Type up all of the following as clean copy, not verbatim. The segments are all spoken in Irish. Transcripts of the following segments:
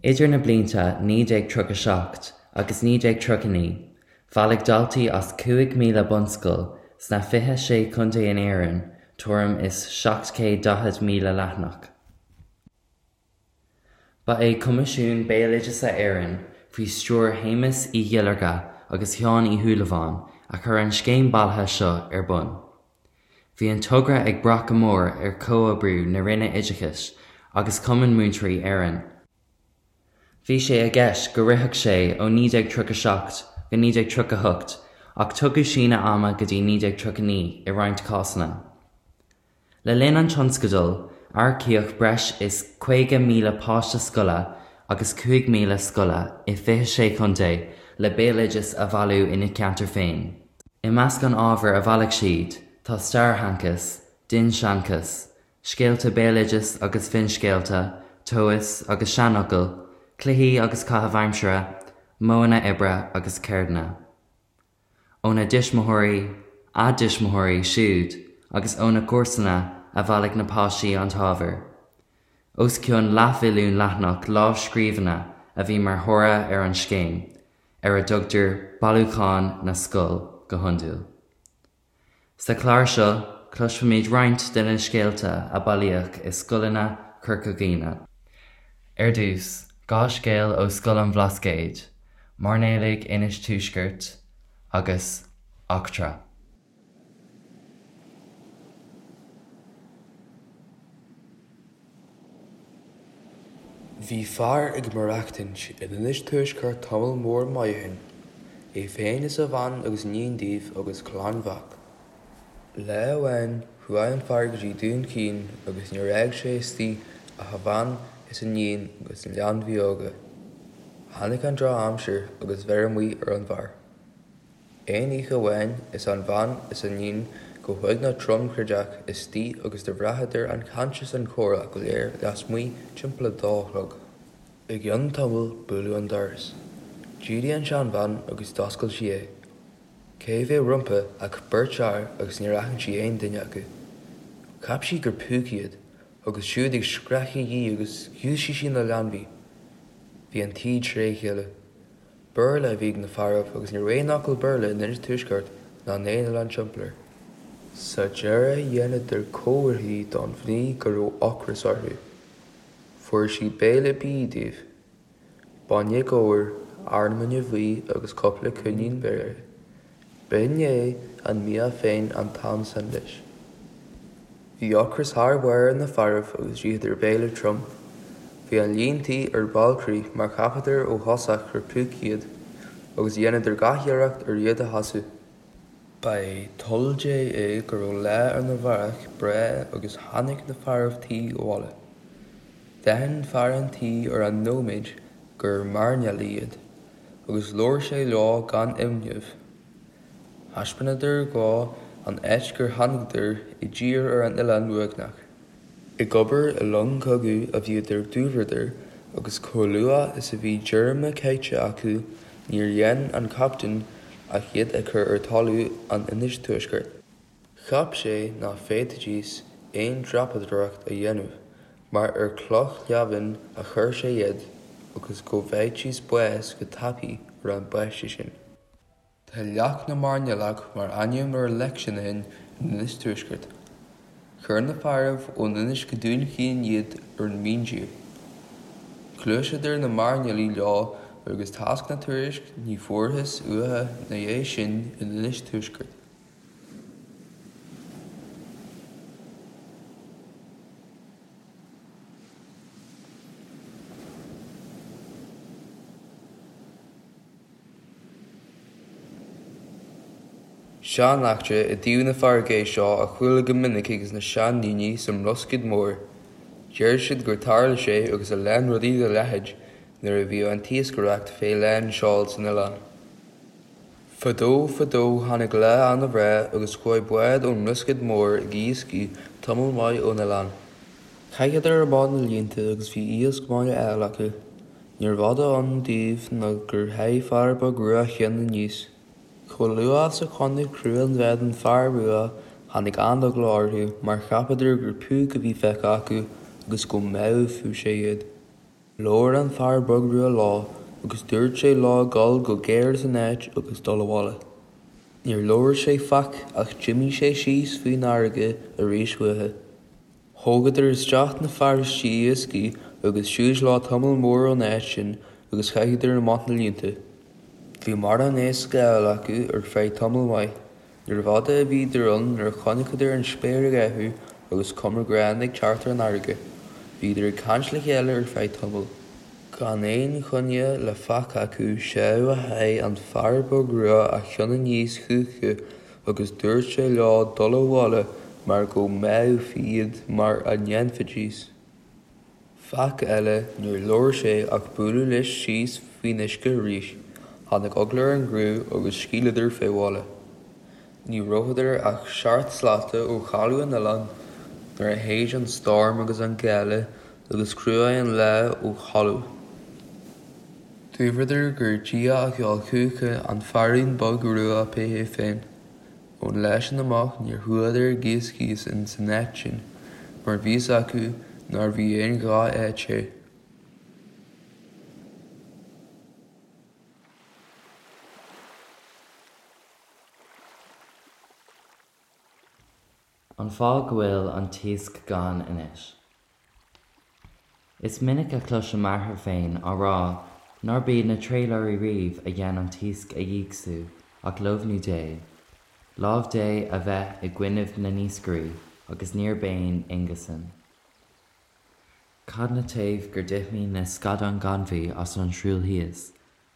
Idir na blianta 1937 agus 1939, bhailigh daltaí as 5,000 bunscoil sna 26 contae in Éirinn tuairim is 740,000 leathanach. Ba é Coimisiún Béaloideasa Éireann, faoi stiúir Shéamuis Uí Dhuilearga agus Sheáin Uí Shúilleabháin, a chuir an scéim bailithe seo ar bun. Bhí an togra ag brath go mór ar chomhoibriú na Roinne Oideachais agus Chumann Múinteoirí Éireann. Bhí sé i gceist go rithfeadh sé ó 1937 go 1938 ach tugadh síneadh ama go dtí 1939 i roinnt cásanna. Le linn an tionscadail, earcaíodh breis is 50,000 páiste scoile agus 5,000 scoile i 26 chontae le béaloideas a bhailiú ina gceantar féin. I measc an ábhair a bhailigh siad tá stairsheanchas, dinnseanchas, scéalta béaloidis agus finscéalta, tomhais agus seanfhocail, cluichí agus caitheamh aimsire, modhanna oibre agus ceirdeanna. Óna dtuismitheoirí, a dtuismitheoirí siúd agus óna gcomharsana a bhailigh na páistí an t-ábhar. Os cionn leathmhilliún leathanach lámhscríbhinne a bhí mar thoradh ar an scéim, ar a dtugtar Bailiúchán na Scol go hiondúil. Sa chlár seo, cloisfimid roinnt de na scéalta a bailíodh i scoileanna Chorca Dhuibhne. Ar dtús, 2 scéal ó Scoil an Bhlascaoid, Mairnéalaigh Inis Tuaiscirt agus Eachtra. Bhí fear ag maireachtaint in Inis Tuaisceart tamall mór maith ó shin, é féin is a bhean agus iníon díobh agus clann mhac. Lá amháin chuaigh an fear go dtí Dún Chaoin agus níor fhág sé istigh ach a bhean is a iníon agus na leanbhaí óga. Tháinig an droch-aimsir agus bheir amuigh ar an bhfear. Aon oíche amháin is an bhean is an iníon go huaigneach tromchroídeach istigh agus do bhraitheadar an chaint is an comhrá go léir lasmuigh timpeall a dó a chlog. I gcionn tamaill buaileadh an doras. D'éirigh an seanbhean agus d'oscail sí é. Cé bheadh rompu ach beirt fhear agus níor aithin sí aon duine acu. Cheap sí gur púcaí iad agus siúd ag screachaigh dhi agus dhúisigh sí na leanbhaí. Bhí an tí tré chéile. Béarla a bhí ag na fearaibh agus ní raibh aon fhocal Béarla in Inis Tuaisceart ná in aon oileán timpeall air. Sa deireadh dheineadar comharthaí don mhnaoi go raibh ocras orthu. Fuair sí béile bídh díobh. Bainne gabhair, arán bainne bhuí agus cúpla coinín beirthe. B'in é an mbia féin an t-am san leis. Bhí ocras thar barr ar na fearaibh agus d'itheadar béile trom. Bhí an líon tí ar ballcrith mar cheapadar ó thosach gur púcaí iad, agus dheineadar gach iarracht ar iad a shásamh. Ba é toil Dé é go raibh lá ar na mhárach breá agus tháinig na fearaibh tí abhaile. D'aithin fear an tí ar an nóiméad gur mairnéalaigh iad, agus labhair sé leo gan imneamh. Thaispeánadar dhó an áit gur tháinigeadar i dtír ar an oileán uaigneach. Ag obair i long cogaidh a bhíodar dúbhradar agus chomh luath is a bhí díorma caithte acu níor dhein an captaen ach iad a chur ar talamh an Inis Tuaiscirt. Cheap sé ná féadfaidís aon dreapadóireacht a dhéanamh mar ar chloch leamhain a chuir sé iad agus go bhfaighidís bás go tapaidh ar an bpaiste sin. Tá Leac na Mairnéalach mar ainm ar leic sin ó shin in Inis Tuaiscirt. Chuir na fearaibh ón Inis go Dún Chaoin iad ar an míntír. Ghluaiseadar na mairnéalaigh leo agus tásc ná tuairisc ní fuarthas uatha 'na dhiaidh sin in Inis Tuaiscirt. Sean-eachtra i dtaobh na farraige é seo a chuala go minic ages na seandaoine sa mBloscaod Mór. Deir siad gur tharla sé agus a lán rudaí dá leithéid nuair a bhíodh an t-iascaireacht fé lán seoil san oileán. Fadó fadó tháinig lá ana-bhreá agus chuaigh bád ón mBloscaod Mór ag iascaigh tamall maith ón oileán. Chaitheadar amach na líonta agus bhí iasc maith á fháil acu. Níorbh fhada ann daoibh ná gur sháigh fear beag rua chionn aníos. Chomh luath is a chonaic criú an bháid an fear rua tháinig an-eagla orthu mar cheapadar gur púc a bhí feicthe acu agus go mbáfadh sé iad. Labhair an fear beag rua leo agus dúirt sé leo gabháil go géar as an áit agus dul abhaile. Níor labhair sé faic ach d'imigh sé síos faoin fharraige arís uathu. Thógadar isteach na fearaistí iascaigh agus suas leo tamall mór ón áit sin agus chaitheadar amach na líonta. Bhí mórán éisc á fháil acu ar feadh tamall maith. Níorbh fhada a bhíodar ann nuair a chonaiceadar an spéir ag athrú agus cuma ghránna ag teacht ar an fharraige. Bhíodar ag caint le chéile ar feadh tamaill. Gan aon choinne le faic acu 'seadh a sháigh an fear beag rua a cheann aníos chucu agus dúirt sé leo dul abhaile mar go mbáthfaí iad mara ndéanfaidís. Faic eile níor labhair sé ach bualadh leis síos faoin uisce arís. Tháinig eagla ar an gcriú agus scaoileadar fé bhaile. Ní rabhadar ach seacht slata ó chaladh an oileáin nuair a shéid an stoirm agus an gála agus chruaigh an lá ó thalamh. Dúradar gur Dia a sheol chucu an feairín beag rua pé hé féin. Ón lá sin amach níor chuadar ag iascaigh ins an áit sin mar bhí fhios acu nárbh í aon ghnáth-áit é. An fáth go bhfuil an t-iasc gann anois. Is minic a chloisim m'athair féin á rá nár b'iad na trálaeirí riamh a dhein an t-iasc a dhígsú ach lómhnú Dé, lámh Dé a bheith i gcoinnibh na n-iascairí agus níor b'aon ionga san. Cad 'na taobh gur d'imthigh na scadáin gainmhí as an Srúill thíos,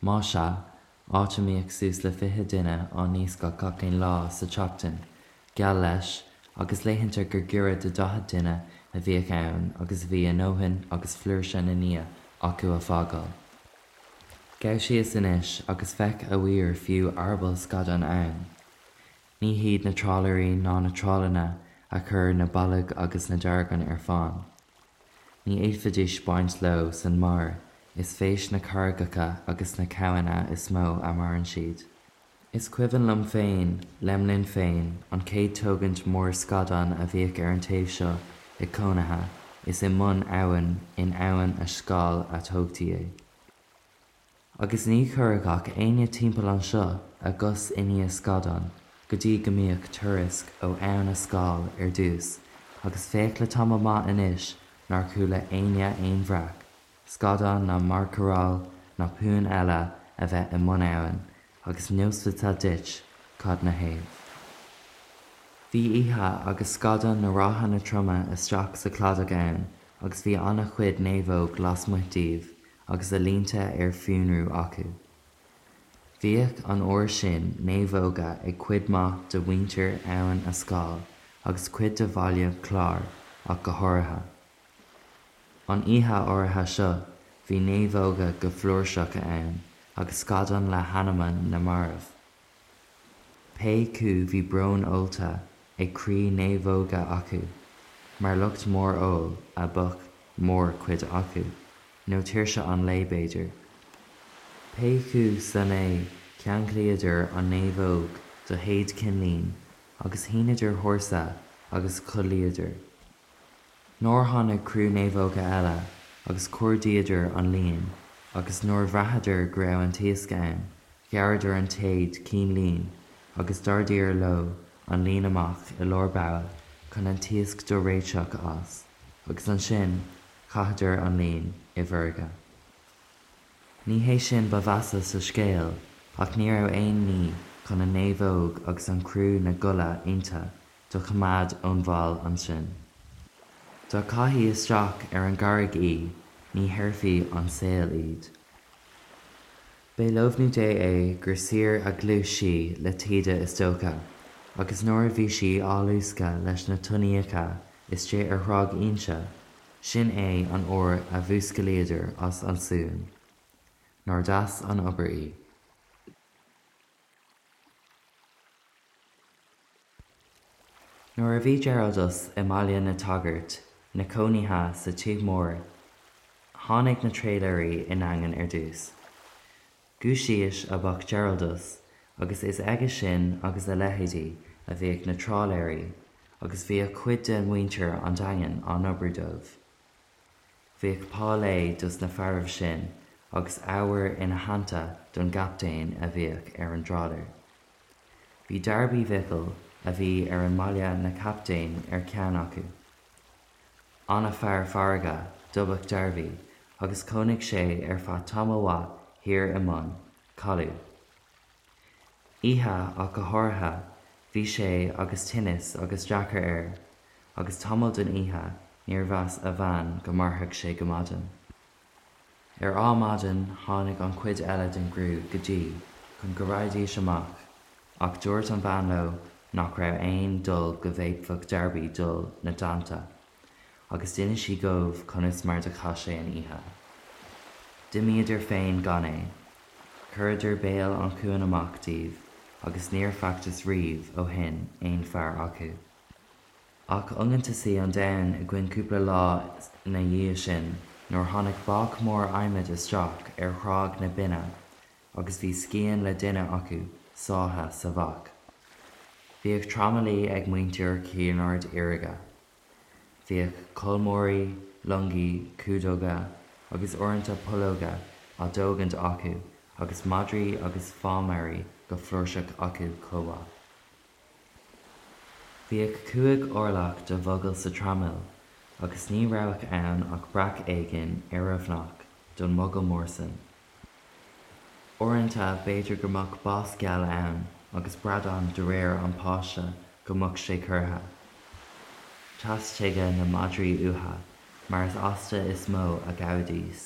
Má sea, áit a mbíodh suas le 20 duine á n-iascach gach aon lá sa tseachtain, geall leis, agus laethanta gur giorra do 40 duine a bhíodh ann agus a bhí a ndóthain agus flúirse na n-ia acu a fágáil. Gabh síos anois agus feic a bhfuil fiú eireaball scadáin ann. Ní hiad na trálaeirí ná na trálanna a chuir na boilg agus na deargáin ar fán. Ní fhéadfaidís baint leo san mar is fés na carraigeacha agus na cabhanna is mó a maireann siad. Is cuimhin liom féin, lem linn féin, an chéad tógaint mór scadán a bhíodh ar an taobh seo ag cónaithe, is i mbun abhann in Abhainn a' Scáil a tógtaí é. Agus ní chuirfeadh ach éinne timpeall anseo a gcos i ndiaidh scadán go dtí go mbíodh tuairisc ó Abhainn a' Scáil ar dtús agus féach le tamall maith anois nár chuala éinne aon bhreac scadán ná mairnéalach ná puinn eile a bheith i mbun abhann agus neosfadsa duit cad 'na thaobh. Bhí oíche agus scadáin na ráthanna troma isteach sa chladach ann agus bhí ana-chuid naomhóg lasmuigh díobh agus a línte ar fionrú acu. Bhíodh an uair sin naomhóga ag cuid maith de mhuintir Abhainn a' Scáil agus cuid de Bhaile Chláir ach go háirithe. An oíche áirithe seo bhí naomhóga go flúirseach ann agus scadáin le hanamacha na marbh. Pé 'cu bhí braon ólta ag croí naomhóige acu, mar lucht mór óil a b'eadh mór chuid acu, nó tuirse an lae b'fhéidir. Pé 'cu san é cheanglaíodar an naomhóg do théad cinnlín agus shíneadar hórsa agus chodlaíodar. Nuair tháinig criú naomhóga eile agus chuardaíodar an líon agus nuair bhraitheadar go raibh an t-iasc ann, ghearradar an téad cinn lín agus d'ardaíodar leo an líon amach i lár bogha chun an t-iasc do réiteach as, agus ansin chaitheadar an líon i bhfarraige. Ní hé sin ba mheasa sa scéal ach ní raibh aon ní chun an naomhóg agus an criú 'na gcodladh inti do choimeád ón bhfál ansin. Dá gcaithfí isteach ar an gcarraig í ní shaorfaí ón saol iad. B'é lómhnú Dé é gur saor a ghluais sí le taoide is dócha, agus nuair a bhí sí á luascadh leis na tonnaíocha istigh ar Thráigh Inse, sin é an uair a mhúscalaíodar as an suan. Nár deas an obair í. Nuair a bhí Geraldus i mBaile na tSagart 'na chónaidhe sa tigh mór tháinig na trálaeirí i nDaingean ar dtús. Giúistís a b'eadh Geraldus agus is aige sin agus a leithéidí a bhíodh na trálaeirí agus bhíodh cuid de mhuintir an Daingin á n-oibriú dóibh. Bhíodh pá lae dos na fearaibh sin agus abhar ina theannta don gcaptaen a bhíodh ar an dtrálaer. Bhí Darby Mhicil a bhí ar an mbaile 'na chaptaen ar cheann acu. Ana-fhear farraige dob eadh Darby agus chónaigh sé ar feadh tamaill mhaith thiar i mbun caladh. Oíche ach go háirithe bhí sé agus tinneas agus deacair air agus tamall den oíche níor mheas a bhean go mairfeadh sé go maidin. Ar ádhmaidin tháinig an chuid eile den gcriú go dtí chun go raghaidís amach ach dúirt an bhean leo nach raibh aon dul go bhféadfadh Darby dul 'na dteannta agus d'inis sí dhóibh conas mar do chaith sé an oíche. D'imíodar féin gan é. Chuireadar béal an chuain amach díobh agus níor facthas riamh ó shin aon fear acu. Ach iongantasaí an domhan againn cúpla lá 'na dhiaidh sin nuair tháinig bác mór adhmaid isteach ar Thráigh na Binne agus bhí scian le duine acu sáithe sa bhac. Bhíodh tramaillí ag muintir Chinn Aird Fhirge. Bhíodh colmóirí, longaí, cumhdóga agus uaireanta pollóga á dtógaint acu agus madraí agus fámairí go flúirseach acu chomh maith. Bhíodh chúig orlach de mhogall sa traimil agus ní rabhadh ann ach breac éigin oireamhnach don mhogall mór san. Uaireanta b'fhéidir go mbeadh bás geal ann agus bradán de réir an pháiste go mbeadh sé curtha. Theastuigeadh na madraí uatha mar is asta is mó a ghabhaidís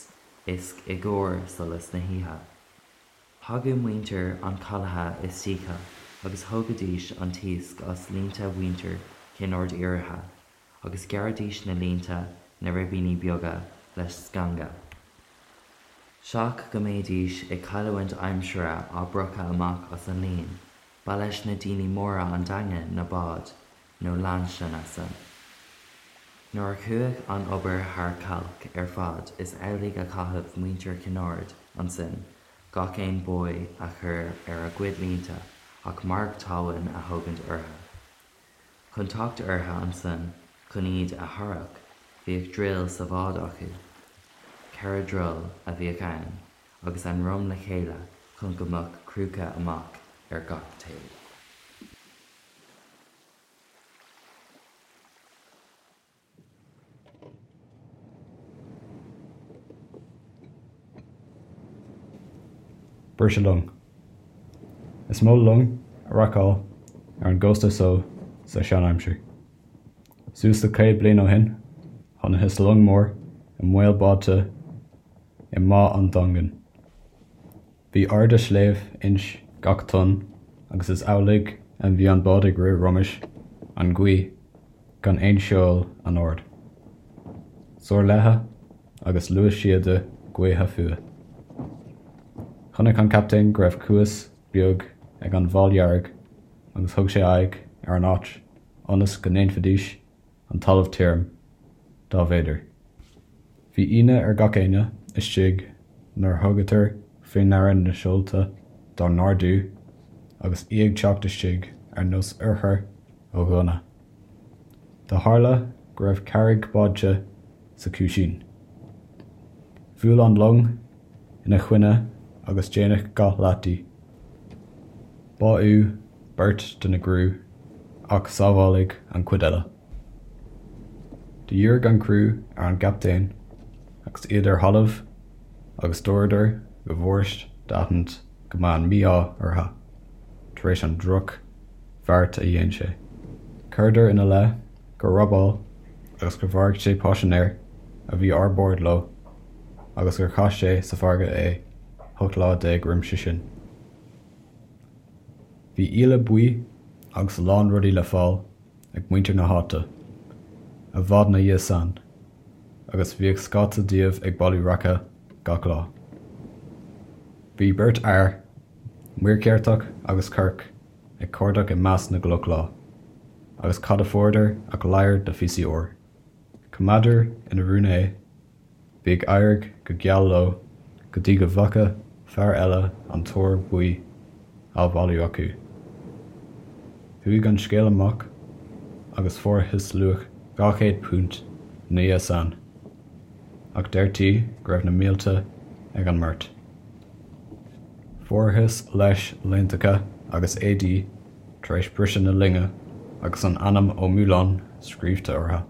iasc i gcomhair solas na hoíche. Thagadh muintir an chalaithe istoíche agus thógaidís an t-iasc as línte mhuintir Chinn Aird Fhirche agus ghearraidís na línte 'na ribíní beaga le sceanga. Seach go mbéidís ag cailleamhaint aimsire á bpriocadh amach as an líon, ba leis na daoine móra an Daingean na báid nó lainseanna san. Nuair a chuaigh an obair thar cailc ar fad is amhlaidh a chaitheadh muintir Chinn Aird ansin gach aon buoy a chur ar a gcuid línte ach marc talmhan a thógaint ortha. Chun teacht ortha ansan chun iad a tharrac bhíodh druil sa bhád acu. Cheithre druil a bhíodh ann agus a ndroim le chéile chun go mbeadh crúca amach ar gach taobh. Briseadh long. Is mó long a racáil ar an gcósta so sa sean-aimsir. Suas le 100 bliain ó shin, chonacthas long mór i mbaol báite i mBá an Daingin. Bhí airde shléibh ins gach tonn agus is amhlaidh a bhí an bád ag rith roimis an ngaoith gan aon seol anord. Soir léithe agus luas síoda gaoithe fúithi. Chonaic an captaen go raibh cuas beag ag an bhFál Dhearg agus thug sé aghaidh ar an áit ionas go ndéanfaidís an talamh tirim, dá mb'fhéidir. Bhí ionadh ar gach éinne istigh nuair a thugadar faoi ndeara na seolta dá n-ardú agus í ag teacht istigh ar nós urchair ó ghunna. Do tharla go raibh carraig báite sa chuaisín. Bhuail an long ina choinne agus déanadh dhá leath di. Báitheadh beirt de na gcriú ach sábháladh an chuid eile. Do dhírigh an criú ar an gcaptaen agus iad ar thalamh agus dúradar go bhfuirist d'aithint go mba an mí-ádh ortha tar éis an droch bheart a dhein sé. Chuireadar ina leith gur robáil agus gur mharaigh sé paisinéir a bhí ar bord leo agus gur chaith sé sa bhfarraige é 18 lá roimse sin. Bhí íle buí agus a lán rudaí le fáil ag muintir na háite i bhfad 'na dhiaidh san agus bhíodh scata díobh ag bailiú raice gach lá. Bhí beirt fhear, Muircheartach agus Corc, ag cuardach i measc na gcloch lá agus cad a fuaireadar ach ladhar de phíosaí óir. Choimeádadar ina rún é Bhí ag éirigh go geal leo go dtí go bhfaca fear eile an t-ór buí á bhailiú acu. Chuaigh an scéal amach agus fuarthas luach £200 ina dhiaidh san. ach deirtí go raibh na mílte ag an mbeirt. Fuarthas leis laontacha agus éadaí tar éis briseadh na loinge agus an ainm Ó Mualáin scríobhta orthu.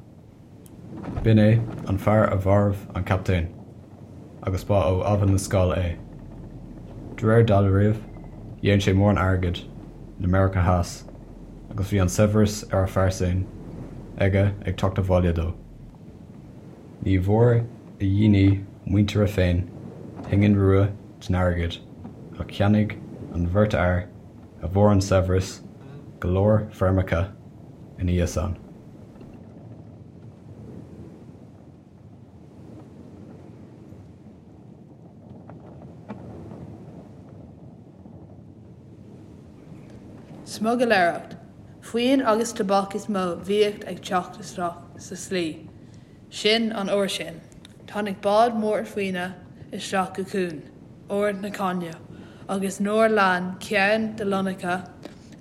B'in é an fear a mharbh an captaen, agus ba ó Abhainn na Scáil é. De réir dealraimh, dhein sé mórán airgid in America Theas agus bhí an saibhreas ar a phearsain aige ag teacht abhaile dó. Ní bhfuair a dhaoine muintire féin pingin rua den airgead ach cheannaigh an bheirt fhear a bhfuair an saibhreas go leor feirmeacha ina dhiaidh san. Smugairléireacht Faoin agus tobac is mó bhíodh ag teacht isteach sa slí sin an uair sin. Tháinig bád mór faoine isteach go cuan Ard na Caithne agus nuair lean ceann de lonnacha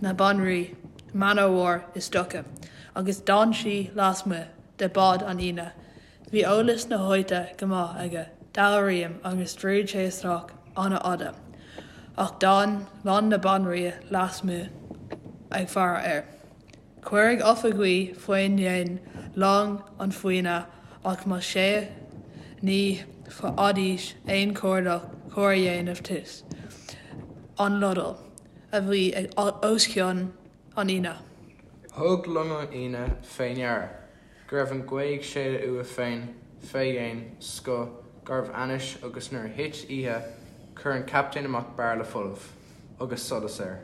na Banríon Man o' War istoíche agus d'fhan sí lasmuigh de bád an fhíona. Bhí eolas na háite go maith aige, dealraím, agus dhruid sé isteach an-fhada, ach d'fhan long na Banríona lasmuigh ag faire air. Cuireadh oifigigh faoin dhéin long an fhíona ach más ea ní bhfaighidís aon chuardach cóir a dhéanamh thíos an lodail a bhí os cionn an fhíona. Thug long an fhíona fé ndeara go raibh an ghaoth ag séideadh uaidh féin fé dhéin scoth garbh ainnis agus nuair a thit oíche chuir an captaen amach bairille folamh agus solas air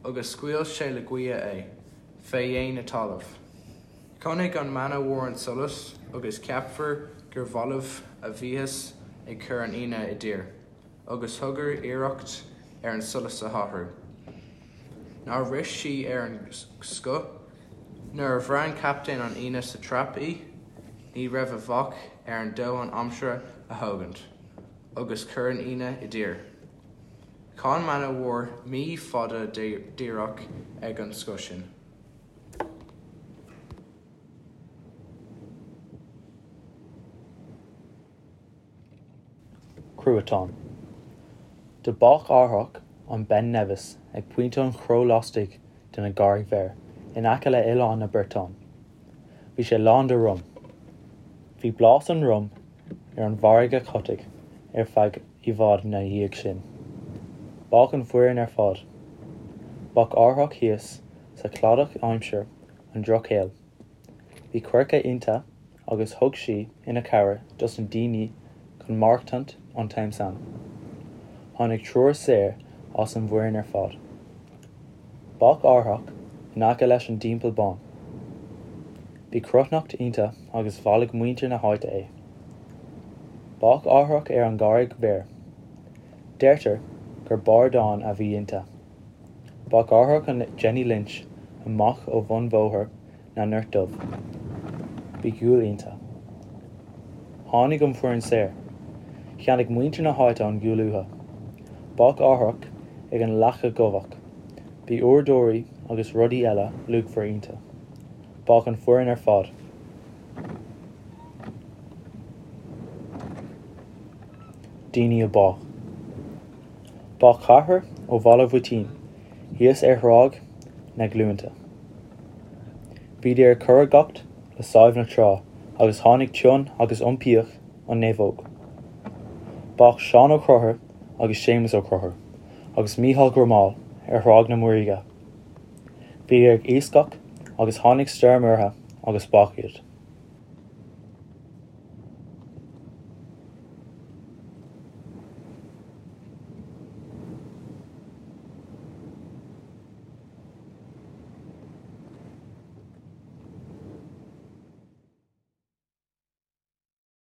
agus scaoil sé le gaoth é fé dhéin na talamh. Chonaic an Man o' War an solas agus ceapfar gur bhalbh a bhíothas ag cur an fhíona i dtír. agus thugadar iarracht ar an solas a athrú. Nár rith sí ar an scoth? Nuair a bhraith an captaen an fhíona sa trap í, ní raibh a mhac ar an domhan aimsire a thógaint, agus chuir an fhíona i dtír. Chan Man o' War mí fada díreach ag an scoth sin. Cruatan. Do bádh árthach an Ben Nevis ag pointe an chró lastoigh de na gCarraig Bhéar in aice le Oileán na Briotáin. Bhí sé lán de rum. Bhí blás an rum ar an bhfarraige Chotaigh ar feadh i bhfad 'na dhiaidh sin. Bádh an foireann ar fad. Bádh árthach thíos sa chladach aimsir an drochshaoil. Bhí coirce inti agus thug sí ina cabhair dos na daoine chun maireachtaint an t-am san. Tháinig triúr saor as an bhfoireann ar fad. Bádh árthach in aice leis an dTeampall Bán. Bhí cruithneacht inti agus bhailigh muintir na háite é. Bádh árthach ar an gCarraig Bhéar. Deirtear gur bardán a bhí inti. Bádh árthach an Jenny Lynch amach ó bhun Bhóthar na nGort Dubh. Bhí gual inti. Tháinig an foireann saor. Cheannaigh muintir na háite an gual uathu. Bádh árthach ag an Leaca Dhubhach. Bhí uaireadóirí agus rudaí eile luachmhar inti. Bádh an foireann ar fad. Daoine a bádh. Bádh ceathrar ó Bhaile Mhuitín thíos ar Thráigh na Gluainte. Bhíodar ag curaidheacht le Sadhbh na Trá agus tháinig tonn agus iompaíodh an naomhóg. Bádh Seán Ó Conchúir agus Séamus Ó Conchúir agus Mícheál Gormáil ar Thráigh na Muiríge. Bhíodar ag iascach agus tháinig stoirm ortha agus bádh iad.